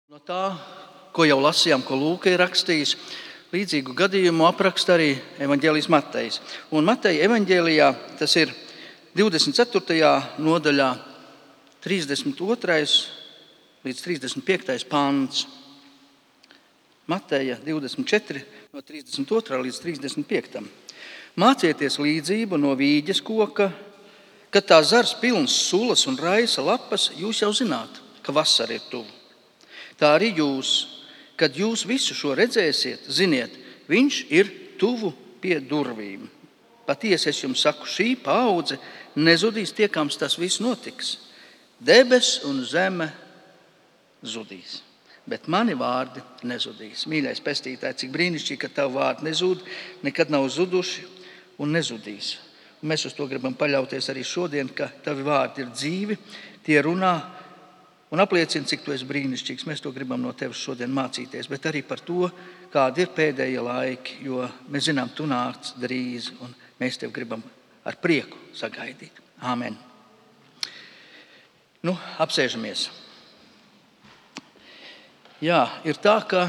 No tā, ko jau lasījām, ko Lūka ir rakstījis, līdzīgu gadījumu apraksta arī evaņģēlijs Matejs. Un Mateja evaņģēlijā tas ir 24. nodaļā 32. līdz 35. pants. Mateja 24, no 32. līdz 35. Mācieties līdzību no vīģes koka, kad tā zars pilns sulas un raisa lapas, jūs jau zināt, ka vasara ir tuvu. Tā arī jūs, kad jūs visu šo redzēsiet, ziniet, viņš ir tuvu pie durvīm. Patiesi es jums saku, šī paudze nezudīs tiekams tas viss notiks. Debes un zeme zudīs, bet mani vārdi nezudīs. Mīļais pestītāj, cik brīnišķīgi, ka tavu vārdi nezud, nekad nav zuduši un nezudīs. Un mēs uz to gribam paļauties arī šodien, ka tavi vārdi ir dzīvi, tie runā un apliecina, cik tu esi brīnišķīgs. Mēs to gribam no tevis šodien mācīties, bet arī par to, kādi ir pēdējie laiki, jo mēs zinām, tu nāc drīz, un mēs tev gribam ar prieku sagaidīt. Āmen. Apsēžamies. Jā, ir tā, ka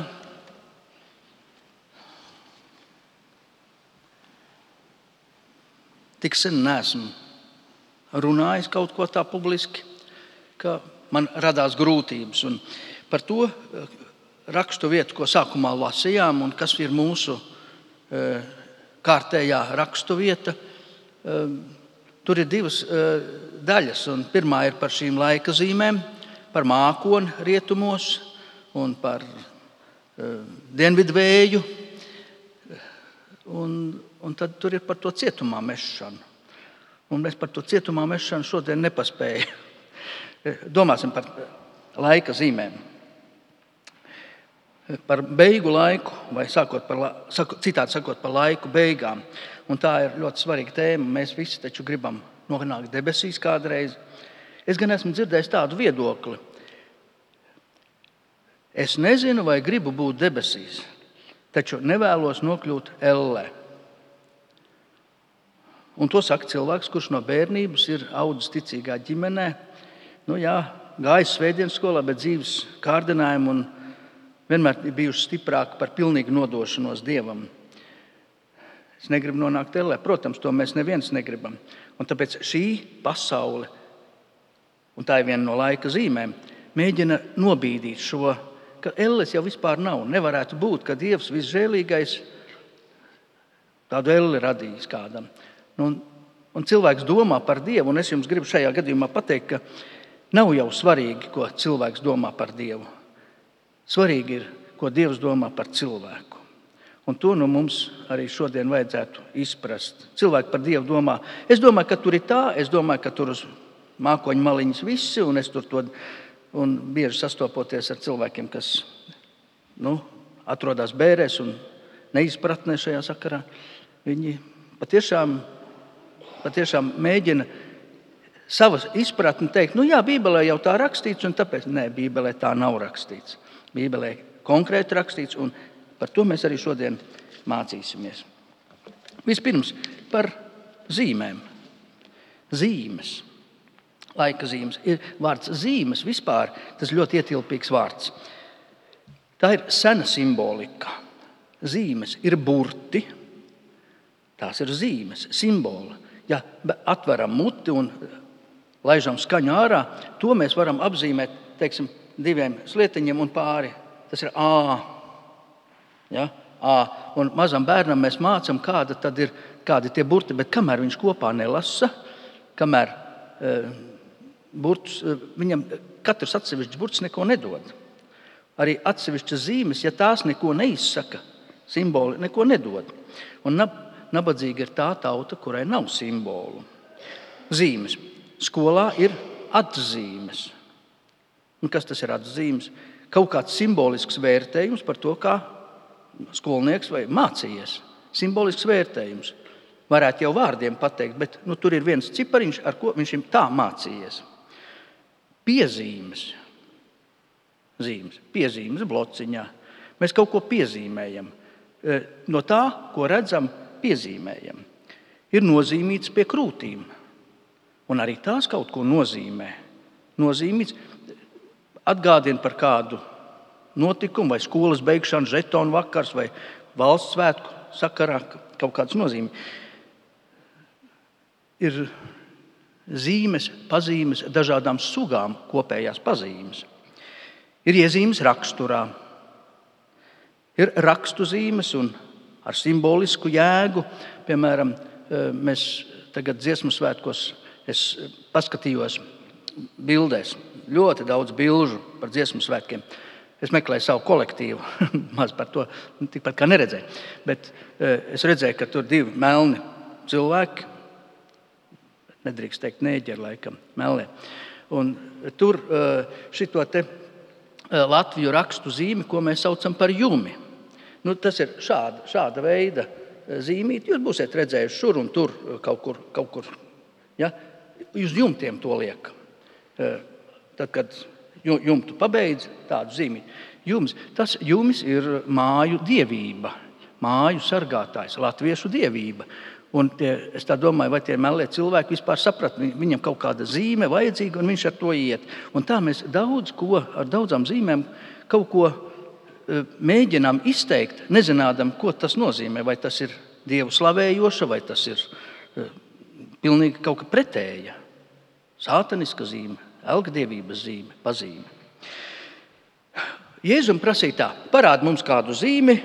tik sen neesmu runājis kaut ko tā publiski, ka man radās grūtības. Un par to rakstu vietu, ko sākumā lasījām, un kas ir mūsu kārtējā rakstu vieta, tur ir divas daļas. Un pirmā ir par šīm laika zīmēm, par mākoni rietumos un par dienvidu vēju. Un tad tur ir par to cietumā mešanu. Un mēs par to cietumā mešanu šodien nepaspējam. Domāsim par laika zīmēm. Par beigu laiku, vai citādi sakot, par laiku beigām. Un tā ir ļoti svarīga tēma. Mēs visi taču gribam nonākt debesīs kādreiz. Es gan esmu dzirdējis tādu viedokli. Es nezinu, vai gribu būt debesīs, taču nevēlos nokļūt ellē. Un to saka cilvēks, kurš no bērnības ir audzis ticīgā ģimenē. Gājis svētdienas skolā, bet dzīves kārdinājumu un vienmēr ir bijuši stiprāki par pilnīgu nodošanos Dievam. Es negribu nonākt ellē. Protams, to mēs neviens negribam. Un tāpēc šī pasaule, un tā ir viena no laika zīmēm, mēģina nobīdīt šo, ka elles jau vispār nav. Nevarētu būt, ka Dievs visžēlīgais tādu elli radījis kādam. Un cilvēks domā par Dievu, un es jums gribu šajā gadījumā pateikt, ka nav jau svarīgi, ko cilvēks domā par Dievu. Svarīgi ir, ko Dievs domā par cilvēku. Un to mums arī šodien vajadzētu izprast. Cilvēki par Dievu domā. Es domāju, ka tur ir tā, es domāju, ka tur uz mākoņu maliņas visi, un es tur un bieži sastopoties ar cilvēkiem, kas atrodas bērēs un neizpratnē šajā sakarā. Viņi patiešām mēģina savas izpratni teikt, Bībelē jau tā rakstīts, un tāpēc, Bībelē tā nav rakstīts. Bībelē konkrēti rakstīts, un par to mēs arī šodien mācīsimies. Vispirms par zīmēm. Zīmes. Laika zīmes. Ir vārds zīmes vispār, tas ļoti ietilpīgs vārds. Tā ir sena simbolika. Zīmes ir burti, tās ir zīmes, simboli. Ja atveram muti un laižam skaņu ārā, to mēs varam apzīmēt, teiksim, diviem slietiņiem un pāri. Tas ir A. Ja? A. Un mazam bērnam mēs mācam, kādi tie burti, bet kamēr viņš kopā nelasa, kamēr viņam katrs atsevišķs burts neko nedod. Arī atsevišķas zīmes, ja tās neko neizsaka, simboli neko nedod. Un nabadzīga ir tā tauta, kurai nav simbolu. Zīmes. Skolā ir atzīmes. Un kas tas ir atzīmes? Kaut kāds simbolisks vērtējums par to, kā skolnieks vai mācījies. Simbolisks vērtējums. Varētu jau vārdiem pateikt, bet tur ir viens cipariņš, ar ko viņš ir tā mācījies. Piezīmes. Zīmes. Piezīmes blociņā. Mēs kaut ko piezīmējam. No tā, ko redzam, piezīmējam. Ir nozīmīts pie krūtīm. Un arī tās kaut ko nozīmē. Nozīmīts atgādina par kādu notikumu, vai skolas beigšana, žetonu vakars, vai valsts svētku sakarā kaut kādas nozīmes. Ir zīmes, pazīmes dažādām sugām kopējās pazīmes. Ir iezīmes raksturā, ir rakstu zīmes un ar simbolisku jēgu. Piemēram, mēs tagad dziesmu svētkos, es paskatījos bildēs, ļoti daudz bilžu par dziesmu svētkiem. Es meklēju savu kolektīvu, maz par to tikpat kā neredzēju. Bet es redzēju, ka tur 2 melni cilvēki, nedrīkst teikt neģeri laikam, melnie. Un tur šito te Latviju rakstu zīmi, ko mēs saucam par jumi. Tas ir šāda veida zīmīti. Jūs būsiet redzējuši šur un tur kaut kur. Ja? Uz jumtiem to liek. Tad, kad jumtu pabeidz, tādu zīmīti. Jumis ir māju dievība, māju sargātājs, latviešu dievība. Un es tā domāju, vai tie melnie cilvēki vispār saprat, viņam kaut kāda zīme vajadzīga, un viņš ar to iet. Un tā mēs ar daudzām zīmēm kaut ko mēģinām izteikt, nezinādam, ko tas nozīmē. Vai tas ir dievu slavējoša, vai tas ir pilnīgi kaut kā pretēja. Sātaniska zīme, elgdievības zīme, pazīme. Jēzum prasīja tā: parādi mums kādu zīmi,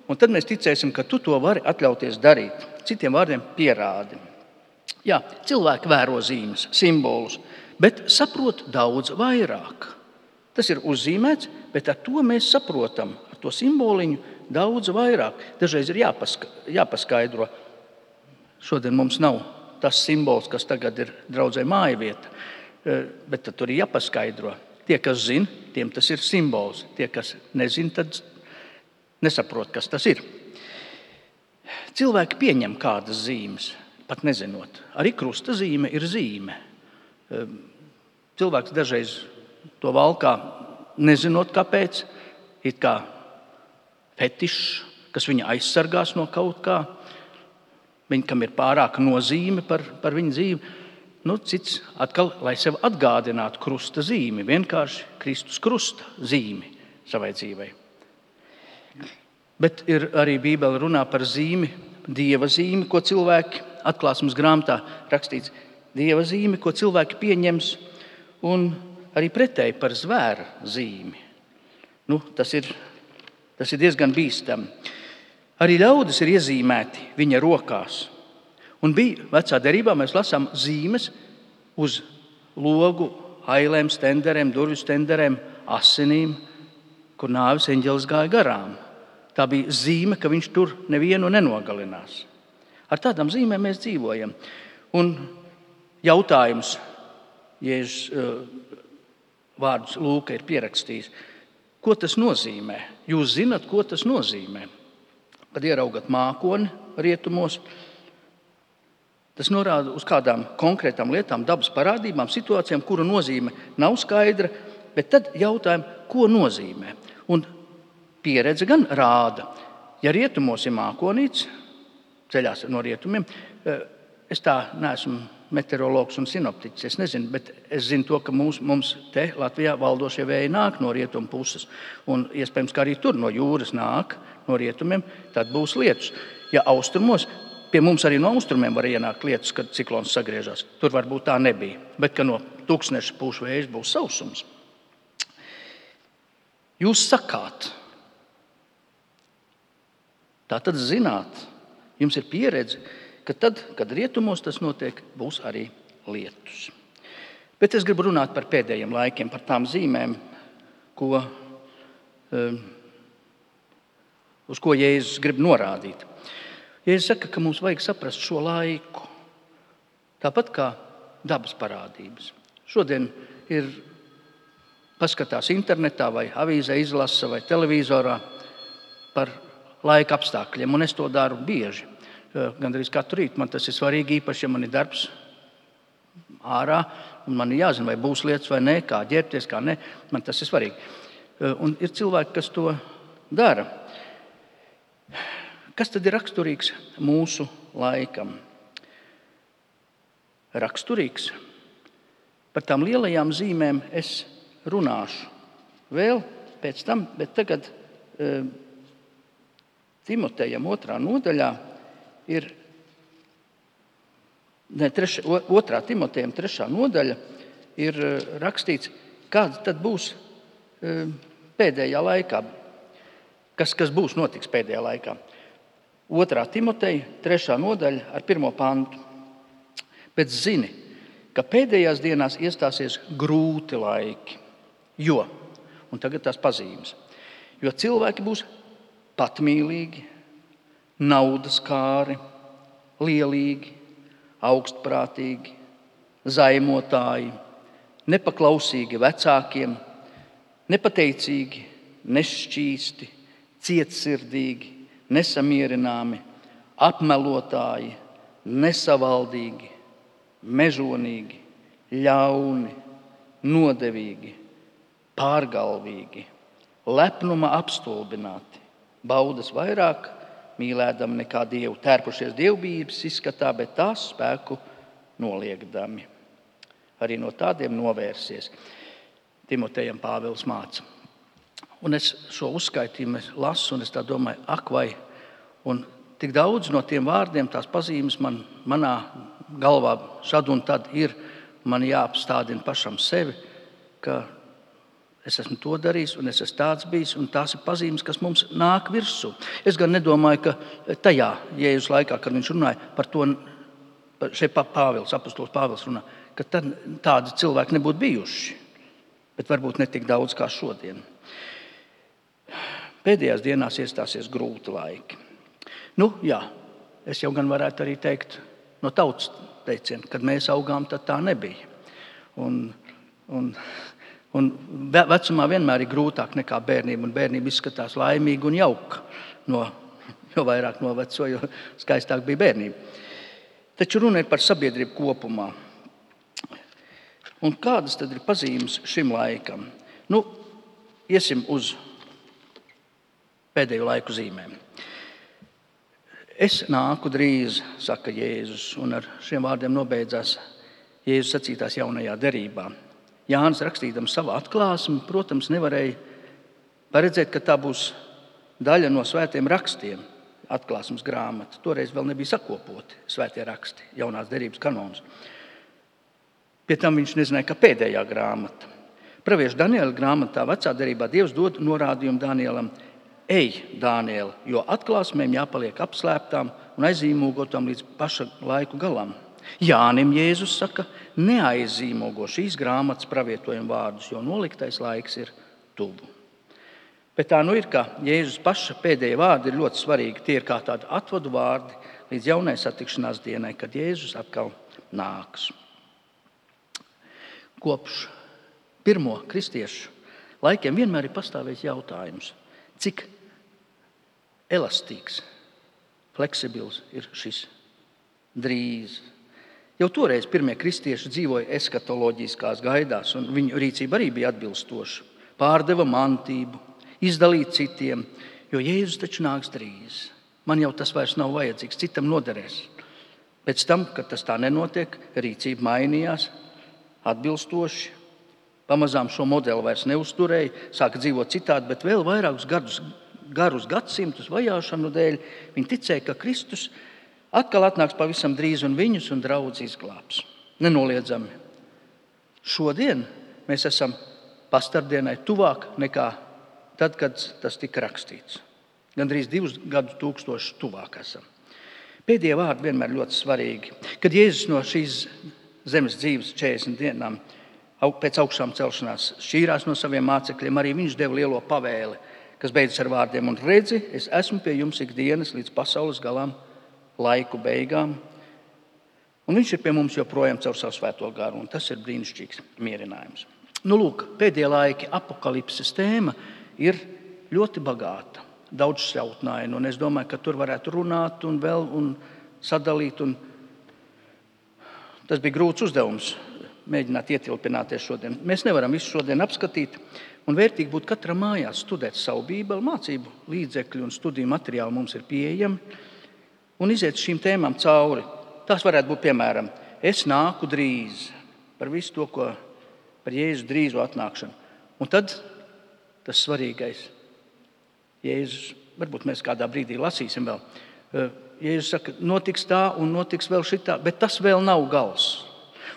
un tad mēs ticēsim, ka tu to vari atļauties darīt. Citiem vārdiem pierādi. Jā, cilvēki vēro zīmes, simbolus, bet saprot daudz vairāk. Tas ir uzzīmēts, bet ar to mēs saprotam, ar to simboliņu daudz vairāk. Dažreiz ir jāpaskaidro. Šodien mums nav tas simbols, kas tagad ir draudzē mājavieta, bet tad tur ir jāpaskaidro. Tie, kas zina, tiem tas ir simbols. Tie, kas nezina, tad nesaprot, kas tas ir. Cilvēki pieņem kādas zīmes, pat nezinot. Arī krusta zīme ir zīme. Cilvēks dažreiz to valkā, nezinot kāpēc, it kā fetišs, kas viņu aizsargās no kaut kā, kam ir pārāka nozīme par viņu dzīvi. Cits atkal, lai sev atgādinātu krusta zīmi, vienkārši Kristus krusta zīmi savai dzīvei. Bet ir arī Bībele runā par zīmi, dieva zīmi, ko cilvēki, Atklāsmes grāmatā rakstīts, dieva zīmi, ko cilvēki pieņems, un arī pretēji par zvēra zīmi. Tas ir diezgan bīstami. Arī ļaudis ir iezīmēti viņa rokās. Un bija vecā derībā, mēs lasām zīmes uz logu, ailēm, stenderēm, durvju stenderēm, asinīm, kur nāves eņģelis gāja garām. Tā bija zīme, ka viņš tur nevienu nenogalinās. Ar tādām zīmēm mēs dzīvojam. Un jautājums, Jēzus vārdus Lūka ir pierakstījis, ko tas nozīmē? Jūs zinat, ko tas nozīmē? Kad ieraugat mākoni rietumos, tas norāda uz kādām konkrētām lietām, dabas parādībām, situācijām, kuru nozīme nav skaidra, bet tad jautājam, ko nozīmē? Un pieredze gan rāda, ja rietumos ir mākonīts, ceļās no rietumiem, es tā neesmu meteorologs un sinoptiķis, es nezinu, bet es zinu to, ka mums te Latvijā valdošie vēji nāk no rietumu puses, un iespējams, ka arī tur no jūras nāk no rietumiem, tad būs lietus. Ja austrumos, pie mums arī no austrumiem var ienākt lietus, kad ciklons sagriežās. Tur varbūt tā nebija, bet ka no tūkstneša pūš vējš būs sausums. Jūs sakāt, tā tad zināt, jums ir pieredze, ka tad, kad rietumos tas notiek, būs arī lietus. Bet es gribu runāt par pēdējiem laikiem, par tām zīmēm, uz ko Jēzus grib norādīt. Jēzus saka, ka mums vajag saprast šo laiku, tāpat kā dabas parādības. Šodien ir paskatās internetā vai avīzē izlasa vai televizorā par laika apstākļiem, un es to daru bieži. Gandrīz katru rītu man tas ir svarīgi, īpaši, ja man ir darbs ārā, un man ir jāzina, vai būs lietas vai nē, kā ģērbties, kā nē, man tas ir svarīgi. Un ir cilvēki, kas to dara. Kas tad ir raksturīgs mūsu laikam? Raksturīgs. Par tām lielajām zīmēm es runāšu vēl pēc tam, bet tagad Timotejam 2. nodaļā ir, 2. Timotejam 3. nodaļa ir rakstīts, kāds tad būs pēdējā laikā, kas būs notiks pēdējā laikā. 2. Timoteja 3. nodaļa ar 1. pantu. Bet zini, ka pēdējās dienās iestāsies grūti laiki, un tagad tās pazīmes, jo cilvēki būs patmīlīgi, naudaskāri, lielīgi, augstprātīgi, zaimotāji, nepaklausīgi vecākiem, nepateicīgi, nešķīsti, cietsirdīgi, nesamierināmi, apmelotāji, nesavaldīgi, mežonīgi, ļauni, nodevīgi, pārgalvīgi, lepnuma apstulbināti, baudas vairāk, mīlēdami nekā Dievu, tērpušies dievbijības izskatā, bet tās spēku noliegdami. Arī no tādiem novērsies. Timotejam Pāvils māca. Un es šo uzskaitījumu lasu, un es tā domāju, vai, un tik daudz no tiem vārdiem, tās pazīmes manā galvā šad un tad ir, man jāapstādina pašam sevi, ka es esmu to darījis, un es esmu tāds bijis, un tās ir pazīmes, kas mums nāk virsū. Es gan nedomāju, ka tajā Jēzus laikā, kad viņš runāja par to, šeit apostols Pāvils runā, ka tad tādi cilvēki nebūtu bijuši, bet varbūt ne tik daudz kā šodien. Pēdējās dienās iestāsies grūti laiki. Es jau gan varētu arī teikt no tautas teiciena, kad mēs augām, tad tā nebija. Un vecumā vienmēr ir grūtāk nekā bērnība, un bērnība izskatās laimīga un jauka. Jo vairāk noveco, jo skaistāk bija bērnība. Taču runa ir par sabiedrību kopumā. Un kādas tad ir pazīmes šim laikam? Iesim uz pēdējo laiku zīmēm. Es nāku drīz, saka Jēzus, un ar šiem vārdiem nobeidzās Jēzus sacītās jaunajā derībā. Jānis rakstījams savā atklāsmē, protams, nevarēja paredzēt, ka tā būs daļa no svētiem rakstiem, atklāsmes grāmata. Toreiz vēl nebija sakopoti svētie raksti, jaunās derības kanons. Pie tam viņš nezināja, ka pēdējā grāmata. Pravieša Daniela grāmatā vecā derībā Dievs dod norādījumu Danielam: Ej, Daniel, jo atklāsmēm jāpaliek apslēptām un aizīmogotām līdz paša laiku galam. Jānim Jēzus saka: neaizīmogo šīs grāmatas pravietojumu vārdus, jo noliktais laiks ir tuvu. Bet tā ir, ka Jēzus paša pēdējie vārdi ir ļoti svarīgi. Tie ir kā tādi atvadu vārdi līdz jaunai satikšanās dienai, kad Jēzus atkal nāks. Kopš pirmo kristiešu laikiem vienmēr ir pastāvējis jautājums, cik elastīgs, fleksibils ir šis drīz. Jau toreiz pirmie kristieši dzīvoja eskatoloģiskās gaidās, un viņu rīcība arī bija atbilstoša. Pārdeva mantību, izdalīja citiem, jo Jēzus taču nāks drīz. Man jau tas vairs nav vajadzīgs, citam noderēs. Pēc tam, kad tas tā nenotiek, rīcība mainījās atbilstoši. Pamazām šo modeli vairs neuzturēja, sāka dzīvot citādi, bet vēl vairākus garus gadsimtus vajāšanu dēļ viņi ticēja, ka Kristus atkal atnāks pavisam drīz un viņus un draudz izglābs. Nenoliedzami. Šodien mēs esam pastardienai tuvāk nekā tad, kad tas tika rakstīts. Gandrīz 2000 tuvāk esam. Pēdējie vārdi vienmēr ļoti svarīgi. Kad Jēzus no šīs zemes dzīves 40 dienām pēc augšām celšanās šķīrās no saviem mācekļiem, arī viņš deva lielo pavēli, kas beidzas ar vārdiem: un redzi, es esmu pie jums ikdienas līdz pasaules galām, laiku beigām. Un viņš ir pie mums joprojām caur savu svēto garu, un tas ir brīnišķīgs mierinājums. Pēdējie laiki apokalipses tēma ir ļoti bagāta, daudzšķautnaina, un es domāju, ka tur varētu runāt un sadalīt. Tas bija grūts uzdevums, mēģināt ietilpināties šodien. Mēs nevaram visu šodien apskatīt, un vērtīgi būtu katram mājās studēt savu Bībeli, mācību līdzekļi un studiju materiāli mums ir pieejami, un iziet šīm tēmām cauri. Tās varētu būt, piemēram, es nāku drīz, par visu to, ko par Jēzus drīzo atnākšanu. Un tad tas svarīgais. Jēzus, varbūt mēs kādā brīdī lasīsim vēl. Jēzus saka, notiks tā un notiks vēl šitā, bet tas vēl nav gals.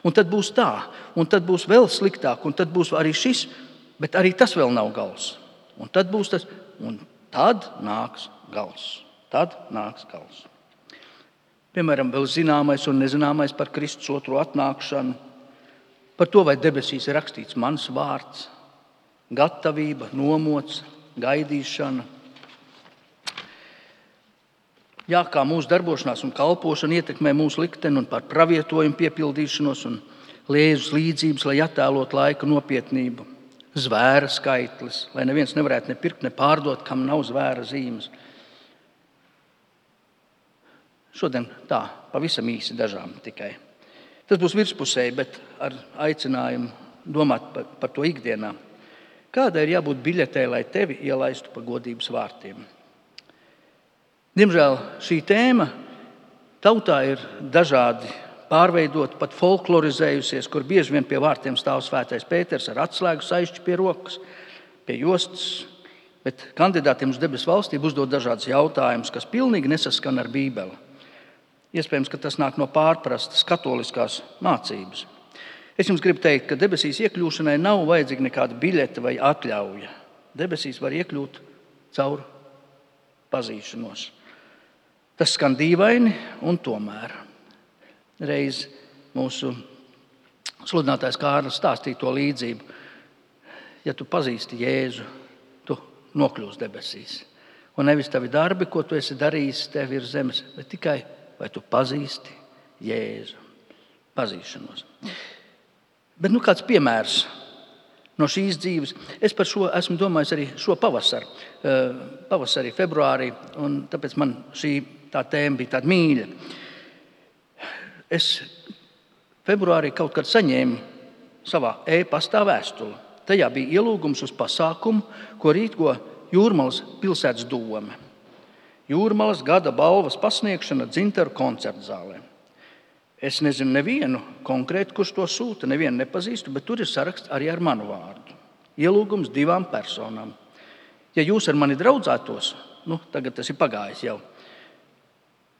Un tad būs tā, un tad būs vēl sliktāk, un tad būs arī šis, bet arī tas vēl nav gals. Un tad būs tas, un tad nāks gals. Tad nāks gals. Piemēram, vēl zināmais un nezināmais par Kristus otro atnākšanu, par to, vai debesīs ir rakstīts mans vārds, gatavība, nomots, gaidīšana. Jā, kā mūsu darbošanās un kalpošana ietekmē mūsu likteni un par pravietojumu piepildīšanos un Jēzus līdzības, lai attēlot laika nopietnību. Zvēra skaitlis, lai neviens nevarētu ne pirkt, ne pārdot, kam nav zvēra zīmes. Šodien tā, pavisam īsi dažām tikai. Tas būs virspusēji, bet ar aicinājumu domāt par to ikdienā. Kādai ir jābūt biļetei, lai tevi ielaistu pa godības vārtiem? Diemžēl šī tēma tautā ir dažādi pārveidota, pat folklorizējusies, kur bieži vien pie vārtiem stāv svētais Pēters ar atslēgu saišķi pie rokas, pie jostas, bet kandidātiem uz debesu valstību uzdod dažādas jautājumus, kas pilnīgi nesaskan ar Bībeli. Iespējams, ka tas nāk no pārprastas katoliskās mācības. Es jums gribu teikt, ka debesīs iekļūšanai nav vajadzīga nekāda biļete vai atļauja. Debesīs var iekļūt caur pazīšanos. Tas skan dīvaini, un tomēr. Reiz mūsu sludinātājs Kārlis stāstīja to līdzību. Ja tu pazīsti Jēzu, tu nokļūsi debesīs. Un nevis tavi darbi, ko tu esi darījis tev ir zemes, bet tikai vai tu pazīsti Jēzu. Pazīšanos. Bet kāds piemērs no šīs dzīves. Es par šo esmu domājis arī šo pavasarī, februārī, un tāpēc man šī tā tēma bija tāda mīļa. Es februārī kaut kad saņēmu savā e-pastā vēstuli. Tajā bija ielūgums uz pasākumu, ko rīko Jūrmalas pilsētas dome. Jūrmalas gada balvas pasniegšana Dzintaru koncertzālē. Es nezinu nevienu konkrētu, kurš to sūta, nevienu nepazīstu, bet tur ir saraksts arī ar manu vārdu. Ielūgums 2 personām. Ja jūs ar mani draudzētos, tagad tas ir pagājis jau,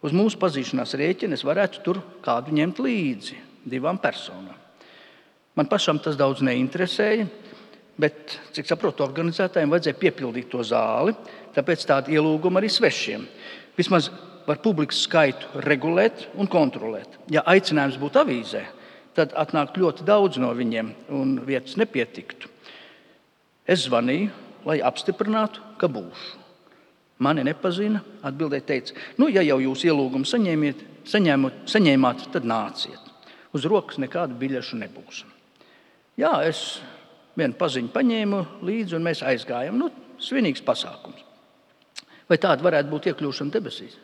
uz mūsu pazīšanās rēķina es varētu tur kādu ņemt līdzi 2 personām. Man pašam tas daudz neinteresēja, bet, cik saprotu, organizētājiem vajadzēja piepildīt to zāli, tāpēc tādu ielūgumu arī svešiem. Vismaz var publikas skaitu regulēt un kontrolēt. Ja aicinājums būtu avīzē, tad atnāktu ļoti daudz no viņiem un vietas nepietiktu. Es zvanīju, lai apstiprinātu, ka būšu. Mani nepazina, atbildēja teica, ja jau jūs ielūgumu saņēmāt, tad nāciet. Uz rokas nekādu biļešu nebūs. Jā, es vienu paziņu paņēmu līdzi un mēs aizgājām. Svinīgs pasākums. Vai tāda varētu būt iekļūšana debesīs?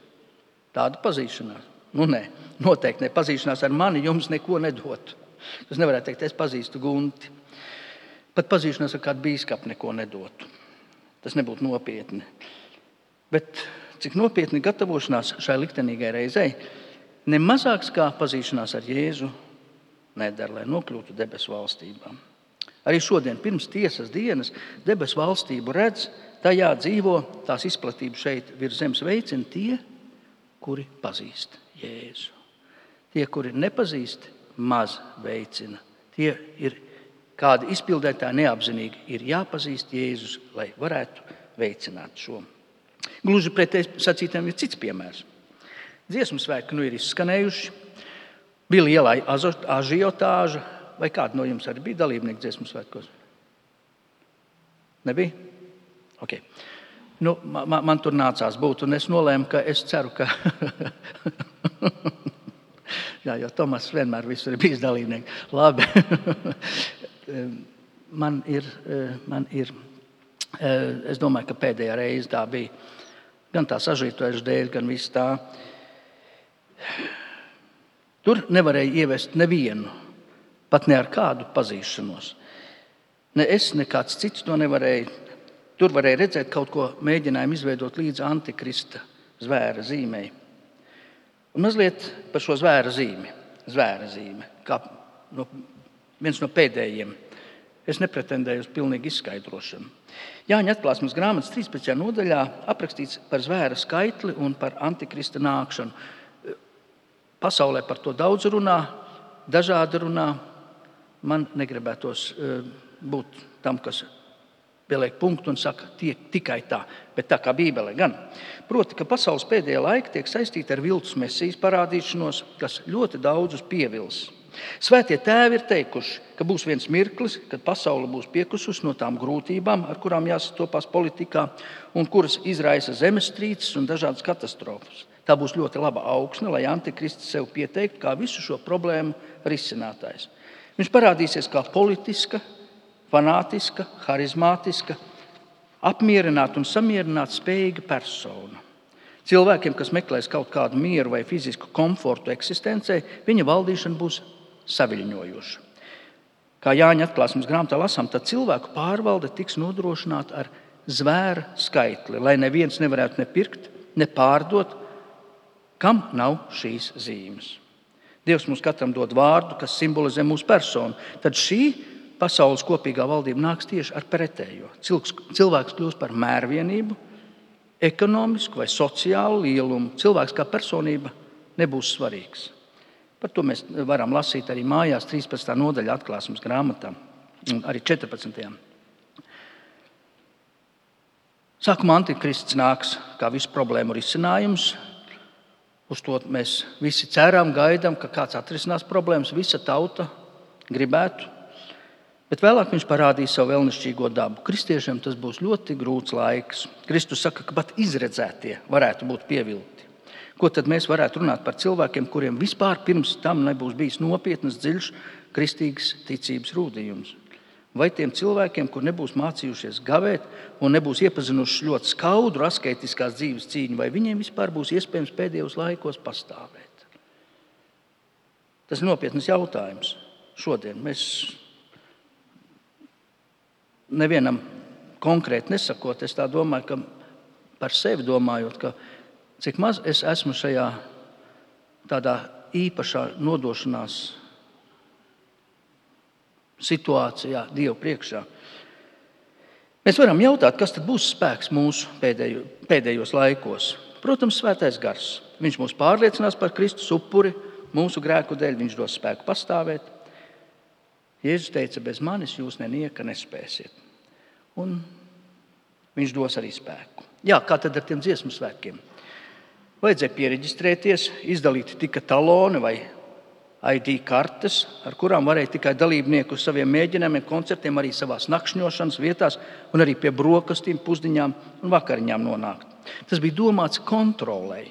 Tāda pazīšanās? Nē, noteikti ne. Pazīšanās ar mani jums neko nedot. Tas nevarētu teikt, es pazīstu Gunti. Pat pazīšanās ar kādu bīskapu neko nedotu. Tas nebūtu nopietni. Bet cik nopietni gatavošanās šai liktenīgai reizei, nemazāks kā pazīšanās ar Jēzu nedara, lai nokļūtu debesu valstībā. Arī šodien, pirms tiesas dienas, debesu valstību redz, tajā dzīvo, tās izplatību šeit virs zemes veicina tie, kuri pazīst Jēzu. Tie, kuri nepazīst, maz veicina. Tie ir kādi izpildētāji neapzinīgi. Ir jāpazīst Jēzus, lai varētu veicināt šo. Gluži pretēji sacītiem ir cits piemērs. Dziesmu svētki ir izskanējuši. Bija liela ažiotāža. Vai kāda no jums arī bija dalībnieki dziesmu svētkos? Nebija? Okay. Man tur nācās būt, un es nolēmu, ka es ceru, ka... Jā, jo Tomas vienmēr visur ir bijis dalībnieks. Labi. Man ir, es domāju, ka pēdējā reize tā bija. Gan tā sažītojuša dēļ, gan viss tā. Tur nevarēja ievest nevienu, pat ne ar kādu pazīšanos. Ne es, ne kāds cits to nevarēja. Tur varēja redzēt kaut ko mēģinājumu izveidot līdz antikrista zvēra zīmei. Un mazliet par šo zvēra zīmi. Kā viens no pēdējiem. Es nepretendēju uz pilnīgu izskaidrošanu. Jāņa atklāsmes grāmatas 13. nodaļā aprakstīts par zvēra skaitli un par antikrista nākšanu. Pasaulē par to daudz runā, dažādi runā. Man negribētos būt tam, kas pieliek punktu un saka, tikai tā, bet tā kā Bībele gan. Proti, ka pasaules pēdējā laika tiek saistīta ar viltus mesijas parādīšanos, kas ļoti daudzus pievils. Svētie tēvi ir teikuši, ka būs viens mirklis, kad pasaule būs piekusus no tām grūtībām, ar kurām jāsastopās politikā, un kuras izraisa zemestrīces un dažādas katastrofas. Tā būs ļoti laba augsne, lai antikrists sev pieteiktu kā visu šo problēmu risinātājs. Viņš parādīsies kā politiska, fanātiska, harizmātiska, apmierināta un samierināta spējīga persona. Cilvēkiem, kas meklēs kaut kādu mieru vai fizisku komfortu eksistencē, viņa valdīšana būs saviļņojoša. Kā Jāņa atklāsmes grāmatā lasām, tad cilvēku pārvalde tiks nodrošināta ar zvēra skaitli, lai neviens nevarētu ne pirkt, ne pārdot, kam nav šīs zīmes. Dievs mums katram dod vārdu, kas simbolizē mūsu personu. Tad šī pasaules kopīgā valdība nāks tieši ar pretējo. Cilvēks kļūs par mērvienību, ekonomisku vai sociālu lielumu. Cilvēks kā personība nebūs svarīgs. Par to mēs varam lasīt arī mājās 13. nodaļa atklāsmes grāmatā, arī 14. Sākumā antikrists nāks kā visu problēmu risinājums. Uz to mēs visi ceram, gaidām, ka kāds atrisinās problēmas, visa tauta gribētu. Bet vēlāk viņš parādīs savu vēlnišķīgo dabu. Kristiešiem tas būs ļoti grūts laiks. Kristus saka, ka pat izredzētie varētu būt pievilti. Ko tad mēs varētu runāt par cilvēkiem, kuriem vispār pirms tam nebūs bijis nopietnas, dziļš, kristīgas ticības rūdījums? Vai tiem cilvēkiem, kur nebūs mācījušies gavēt un nebūs iepazinuši ļoti skaudru asketiskās dzīves cīņu, vai viņiem vispār būs iespējams pēdējos laikos pastāvēt? Tas ir nopietnas jautājums. Šodien mēs nevienam konkrēti nesakot, es tā domāju, ka par sevi domājot, ka cik maz es esmu šajā tādā īpašā nodošanās situācijā Dievu priekšā. Mēs varam jautāt, kas tad būs spēks mūsu pēdējos laikos. Protams, svētais gars. Viņš mūs pārliecinās par Kristus upuri, mūsu grēku dēļ viņš dos spēku pastāvēt. Jēzus teica, bez manis jūs nenieka nespēsiet. Un viņš dos arī spēku. Jā, kā tad ar tiem dziesmu svētkiem? Vajadzēja piereģistrēties, izdalīt tika taloni vai ID kartes, ar kurām varēja tikai dalībnieki uz saviem mēģinājumiem, koncertiem, arī savās nakšņošanas vietās un arī pie brokastīm, pusdiņām un vakariņām nonākt. Tas bija domāts kontrolei.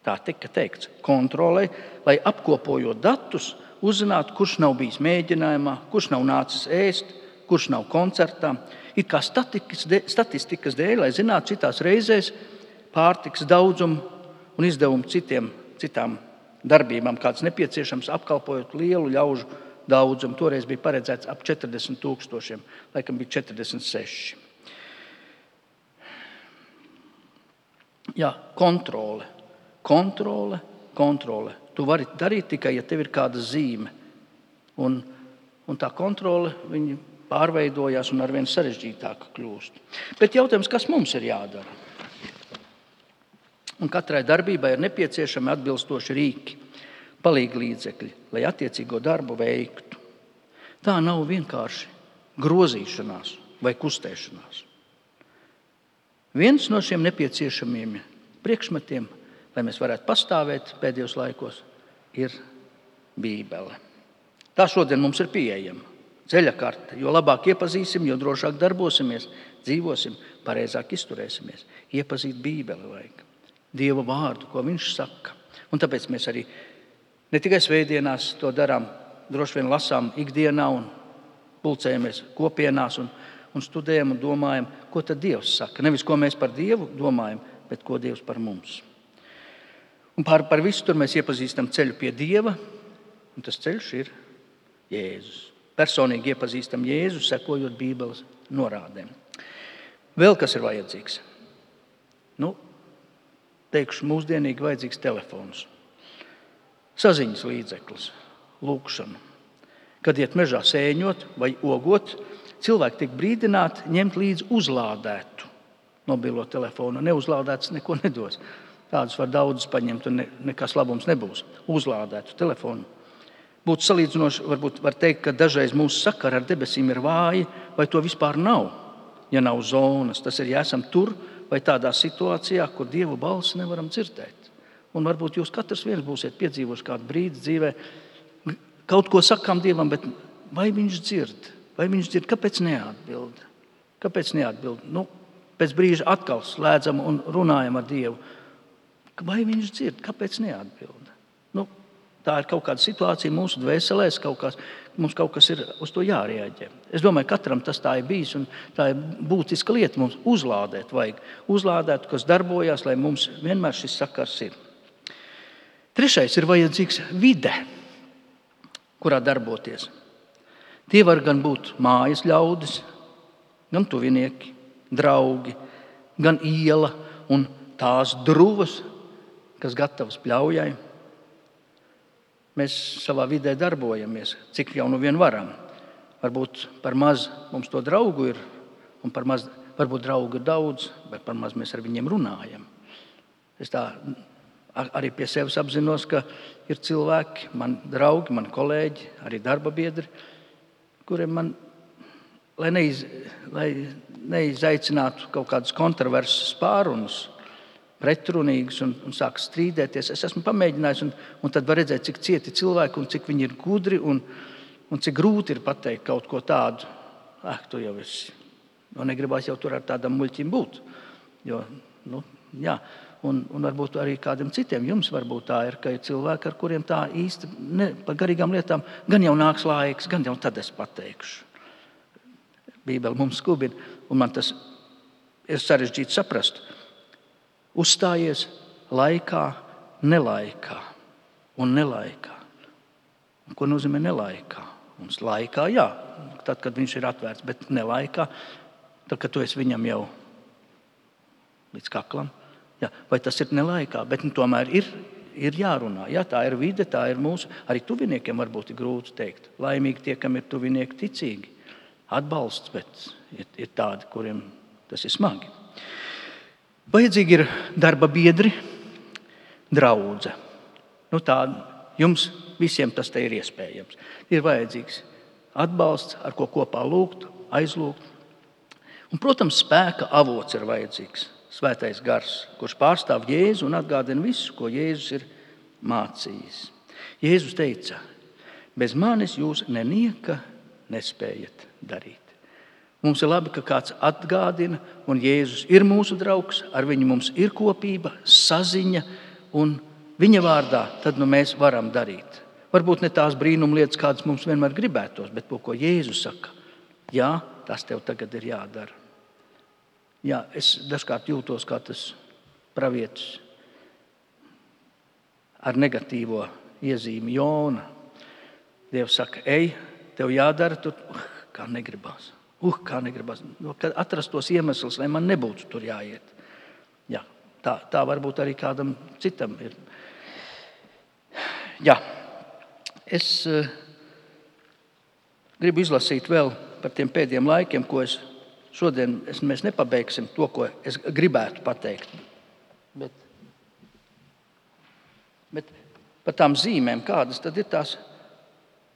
Tā tika teikts, kontrolei, lai apkopojot datus, uzzinātu, kurš nav bijis mēģinājumā, kurš nav nācis ēst, kurš nav koncertā. It kā statistikas dēļ, lai zinātu citās reizēs pārtikas daudzumu un izdevumu citām darbībām, kāds nepieciešams, apkalpojot lielu ļaužu daudzumu. Toreiz bija paredzēts ap 40 000, laikam bija 46. Jā, kontrole. Tu vari darīt tikai, ja tev ir kāda zīme. Un tā kontrole, viņa pārveidojās un arvien sarežģītāka kļūst. Bet jautājums, kas mums ir jādara? Un katrai darbībai ir nepieciešami atbilstoši rīki, palīglīdzekļi, lai attiecīgo darbu veiktu. Tā nav vienkārši grozīšanās vai kustēšanās. Viens no šiem nepieciešamiem priekšmetiem, lai mēs varētu pastāvēt pēdējos laikos, ir Bībele. Tā šodien mums ir pieejama. Ceļa karte. Jo labāk iepazīsim, jo drošāk darbosimies, dzīvosim, pareizāk izturēsimies. Iepazīt Bībeli vajag. Dieva vārdu, ko viņš saka. Un tāpēc mēs arī ne tikai svētdienās to darām, droši vien lasām ikdienā un pulcējamies kopienās un studējam un domājam, ko tad Dievs saka. Nevis, ko mēs par Dievu domājam, bet ko Dievs par mums. Un par visu tur mēs iepazīstam ceļu pie Dieva, un tas ceļš ir Jēzus. Personīgi iepazīstam Jēzu, sekojot Bībeles norādēm. Vēl kas ir vajadzīgs? Teikšu, mūsdienīgi vajadzīgs telefons, saziņas līdzeklis, lūkšana. Kad iet mežā sēņot vai ogot, cilvēki tiek brīdināti ņemt līdzi uzlādētu mobilo telefonu. Neuzlādēts neko nedos. Tādus var daudz paņemt un nekas labums nebūs. Uzlādētu telefonu. Būtu salīdzinoši, varbūt var teikt, ka dažreiz mūsu sakara ar debesīm ir vāji, vai to vispār nav, ja nav zonas. Tas ir, ja esam tur vai tādā situācijā, kur Dievu balsi nevaram dzirdēt. Un varbūt jūs katrs viens būsiet piedzīvojuši kādu brīdi dzīvē, kaut ko sakām Dievam, bet vai viņš dzird? Vai viņš dzird? Kāpēc neatbild? Kāpēc neatbild? Pēc brīža atkal slēdzam un runājam ar Dievu. Vai viņš dzird? Kāpēc neatbild? Tā ir kaut kāda situācija mūsu dvēselēs, mums kaut kas ir uz to jārēģē. Es domāju, katram tas tā ir bijis, un tā ir būtiska lieta mums uzlādēt. Vajag uzlādēt, kas darbojās, lai mums vienmēr šis sakars ir. Trešais ir vajadzīgs vide, kurā darboties. Tie var gan būt mājas ļaudis, gan tuvinieki, draugi, gan iela un tās druvas, kas gatavas pļaujai. Mēs savā vidē darbojamies, cik jau nu vien varam. Varbūt par maz mums to draugu ir, un par maz, varbūt draugu ir daudz, bet par maz mēs ar viņiem runājam. Es tā arī pie sevis apzinos, ka ir cilvēki, mani draugi, mani kolēģi, arī darba biedri, kuriem man, lai neizaicinātu kaut kādus kontroversus pārunus, pretrunīgus un sāk strīdēties. Es esmu pamēģinājis, un tad var redzēt, cik cieti cilvēki un cik viņi ir gudri un cik grūti ir pateikt kaut ko tādu. Tu jau esi. Negribās jau tur ar tādam muļķim būt. Un varbūt arī kādiem citiem jums varbūt tā ir, ka ir cilvēki, ar kuriem tā īsti par garīgām lietām gan jau nāks laiks, gan jau tad es pateikšu. Bībele mums skubina, un man tas ir sarežģīti saprast. Uzstājies laikā, nelaikā un nelaikā. Un ko nozīmē nelaikā? Mums laikā, jā, tad, kad viņš ir atvērts, bet nelaikā, tad, kad tu esi viņam jau līdz kaklam. Jā, vai tas ir nelaikā, bet tomēr ir jārunā. Jā, tā ir vide, tā ir mūsu, arī tuviniekiem varbūt ir grūti teikt. Laimīgi tie, kam ir tuvinieki ticīgi. Atbalsts, bet ir tādi, kuriem tas ir smagi. Vajadzīgi ir darba biedri, draudze. Tā jums visiem tas te ir iespējams. Ir vajadzīgs atbalsts, ar ko kopā lūgt, aizlūgt. Un, protams, spēka avots ir vajadzīgs. Svētais gars, kurš pārstāv Jēzu un atgādina visu, ko Jēzus ir mācījis. Jēzus teica, bez manis jūs nenieka nespējat darīt. Mums ir labi, ka kāds atgādina, un Jēzus ir mūsu draugs, ar viņu mums ir kopība, saziņa, un viņa vārdā tad mēs varam darīt. Varbūt ne tās brīnumlietas, kādas mums vienmēr gribētos, bet to, ko Jēzus saka, jā, tas tev tagad ir jādara. Jā, es dažkārt jūtos kā tas pravietis ar negatīvo iezīmi Jona. Dievs saka, ej, tev jādara, tur kā negribās. Kā negribas, kad atrastos iemeslus, lai man nebūtu tur jāiet. Jā, tā varbūt arī kādam citam ir. Jā, es gribu izlasīt vēl par tiem pēdējiem laikiem, ko šodien mēs nepabeigsim to, ko es gribētu pateikt. Bet par tām zīmēm, kādas tad ir tās,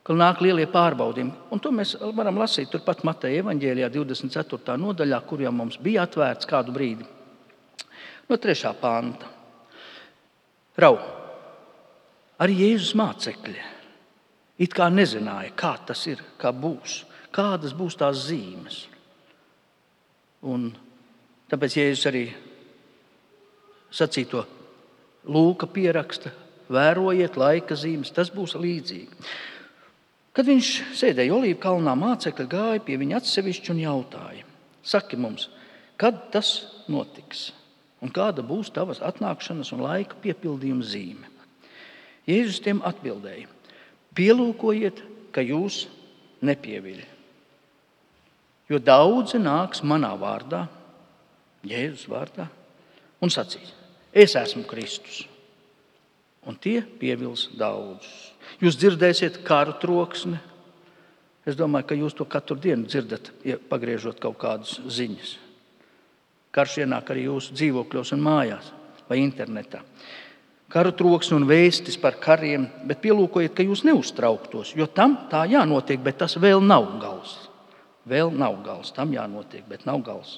ka nāk lielie pārbaudījumi. Un to mēs varam lasīt turpat Mateja evaņģēlijā 24. nodaļā, kur jau mums bija atvērts kādu brīdi. No 3. panta. Arī Jēzus mācekļi it kā nezināja, kā tas ir, kā būs, kādas būs tās zīmes. Un tāpēc Jēzus arī sacīto Lūka pieraksta, vērojiet laika zīmes, tas būs līdzīgi. Kad viņš sēdēja Olīvu kalnā, mācekļi gāja pie viņa atsevišķi un jautāja, saki mums, kad tas notiks un kāda būs tavas atnākšanas un laika piepildījuma zīme? Jēzus tiem atbildēja, pielūkojiet, ka jūs nepieviļ. Jo daudzi nāks manā vārdā, Jēzus vārdā, un sacīs, es esmu Kristus. Un tie pievils daudzus. Jūs dzirdēsiet karu troksni. Es domāju, ka jūs to katru dienu dzirdat, pagriežot kaut kādas ziņas. Karš ienāk arī jūsu dzīvokļos un mājās vai internetā. Karu troksni un vēstis par kariem, bet pielūkojiet, ka jūs neuztrauktos, jo tam tā jānotiek, bet tas vēl nav gals. Vēl nav gals, tam jānotiek, bet nav gals.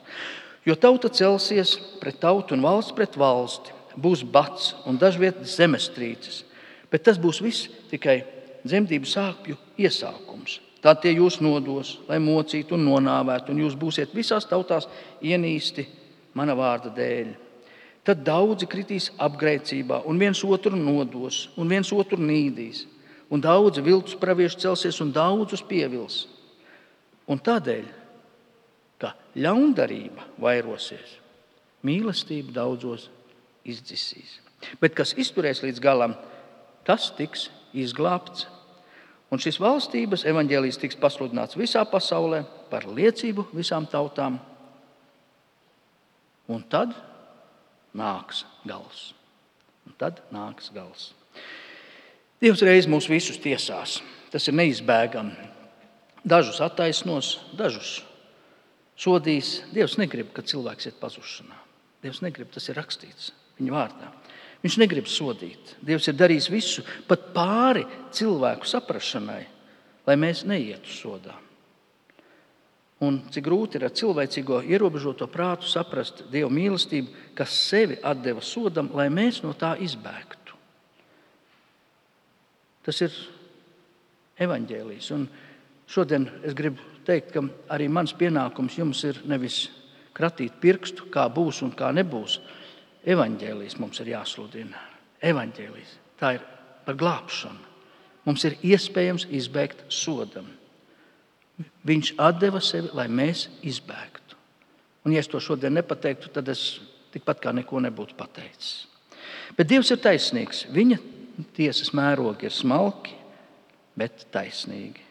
Jo tauta celsies pret tautu un valsts pret valsti, būs bats un dažviet zemestrīces, bet tas būs viss tikai dzemdību sāpju iesākums. Tā tie jūs nodos, lai mocītu un nonāvētu, un jūs būsiet visās tautās ienīsti mana vārda dēļ. Tad daudzi kritīs apgrēcībā, un viens otru nodos, un viens otru nīdīs, un daudzi viltus pravieši celsies un daudzus pievils. Un tādēļ, ka ļaundarība vairosies, mīlestība daudzos izdzisīs. Bet kas izturēs līdz galam, tas tiks izglābts. Un šis valstības evaņģēlijs tiks pasludināts visā pasaulē par liecību visām tautām. Un tad nāks gals. Dievs reiz mūs visus tiesās. Tas ir neizbēgami. Dažus attaisnos, dažus sodīs. Dievs negrib, ka cilvēks iet pazušanā. Dievs negrib, tas ir rakstīts viņa vārdā. Viņš negrib sodīt. Dievs ir darījis visu, pat pāri cilvēku saprašanai, lai mēs neietu sodā. Un cik grūti ir ar cilvēcīgo ierobežoto prātu saprast Dieva mīlestību, kas sevi atdeva sodam, lai mēs no tā izbēgtu. Tas ir evaņģēlijs. Un šodien es gribu teikt, ka arī mans pienākums jums ir nevis kratīt pirkstu, kā būs un kā nebūs. Evaņģēlijs mums ir jāsludina. Evaņģēlijs. Tā ir par glābšanu. Mums ir iespējams izbēgt sodam. Viņš atdeva sevi, lai mēs izbēgtu. Un ja es to šodien nepateiktu, tad es tikpat kā neko nebūtu pateicis. Bet Dievs ir taisnīgs. Viņa tiesas mērogi ir smalki, bet taisnīgi.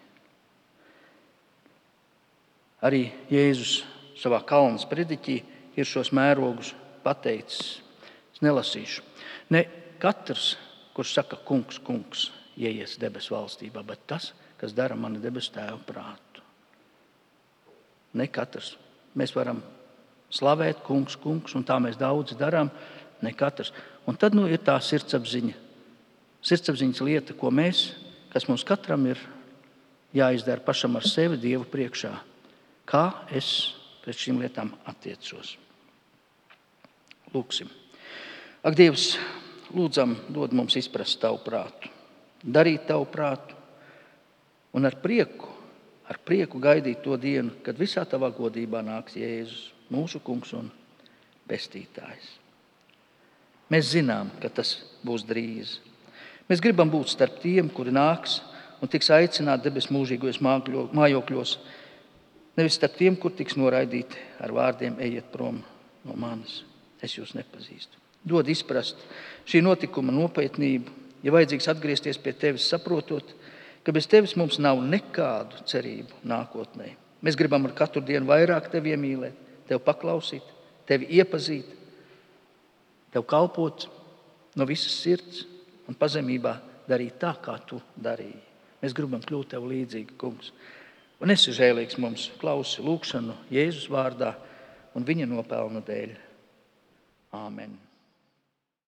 Arī Jēzus savā kalnas prediķī ir šos mērogus pateicis. Es nelasīšu. Ne katrs, kurš saka kungs, kungs, ieies debesu valstībā, bet tas, kas dara mani debesu tēva prātu. Ne katrs. Mēs varam slavēt kungs, kungs, un tā mēs daudz darām. Ne katrs. Un tad ir tā sirdsapziņa. Sirdsapziņas lieta, ko mēs, kas mums katram ir jāizdara pašam ar sevi Dievu priekšā. Kā es pret šīm lietām attiecos. Lūksim. Ak, Dievs, lūdzam, dod mums izprast tavu prātu, darīt tavu prātu un ar prieku gaidīt to dienu, kad visā tavā godībā nāks Jēzus, mūsu kungs un pestītājs. Mēs zinām, ka tas būs drīz. Mēs gribam būt starp tiem, kuri nāks un tiks aicināti debesu mūžīgajos mājokļos, nevis starp tiem, kur tiks noraidīti ar vārdiem ejiet prom no manis. Es jūs nepazīstu. Dod izprast šī notikuma nopietnību, ja vajadzīgs atgriezties pie tevis, saprotot, ka bez tevis mums nav nekādu cerību nākotnē. Mēs gribam ar katru dienu vairāk tevi iemīlēt, tevi paklausīt, tevi iepazīt, tev kalpot no visas sirds un pazemībā darīt tā, kā tu darīji. Mēs gribam kļūt tev līdzīgi, kungs. Un esi žēlīgs mums, klausi lūkšanu Jēzus vārdā un viņa nopelnu dēļ. Āmen.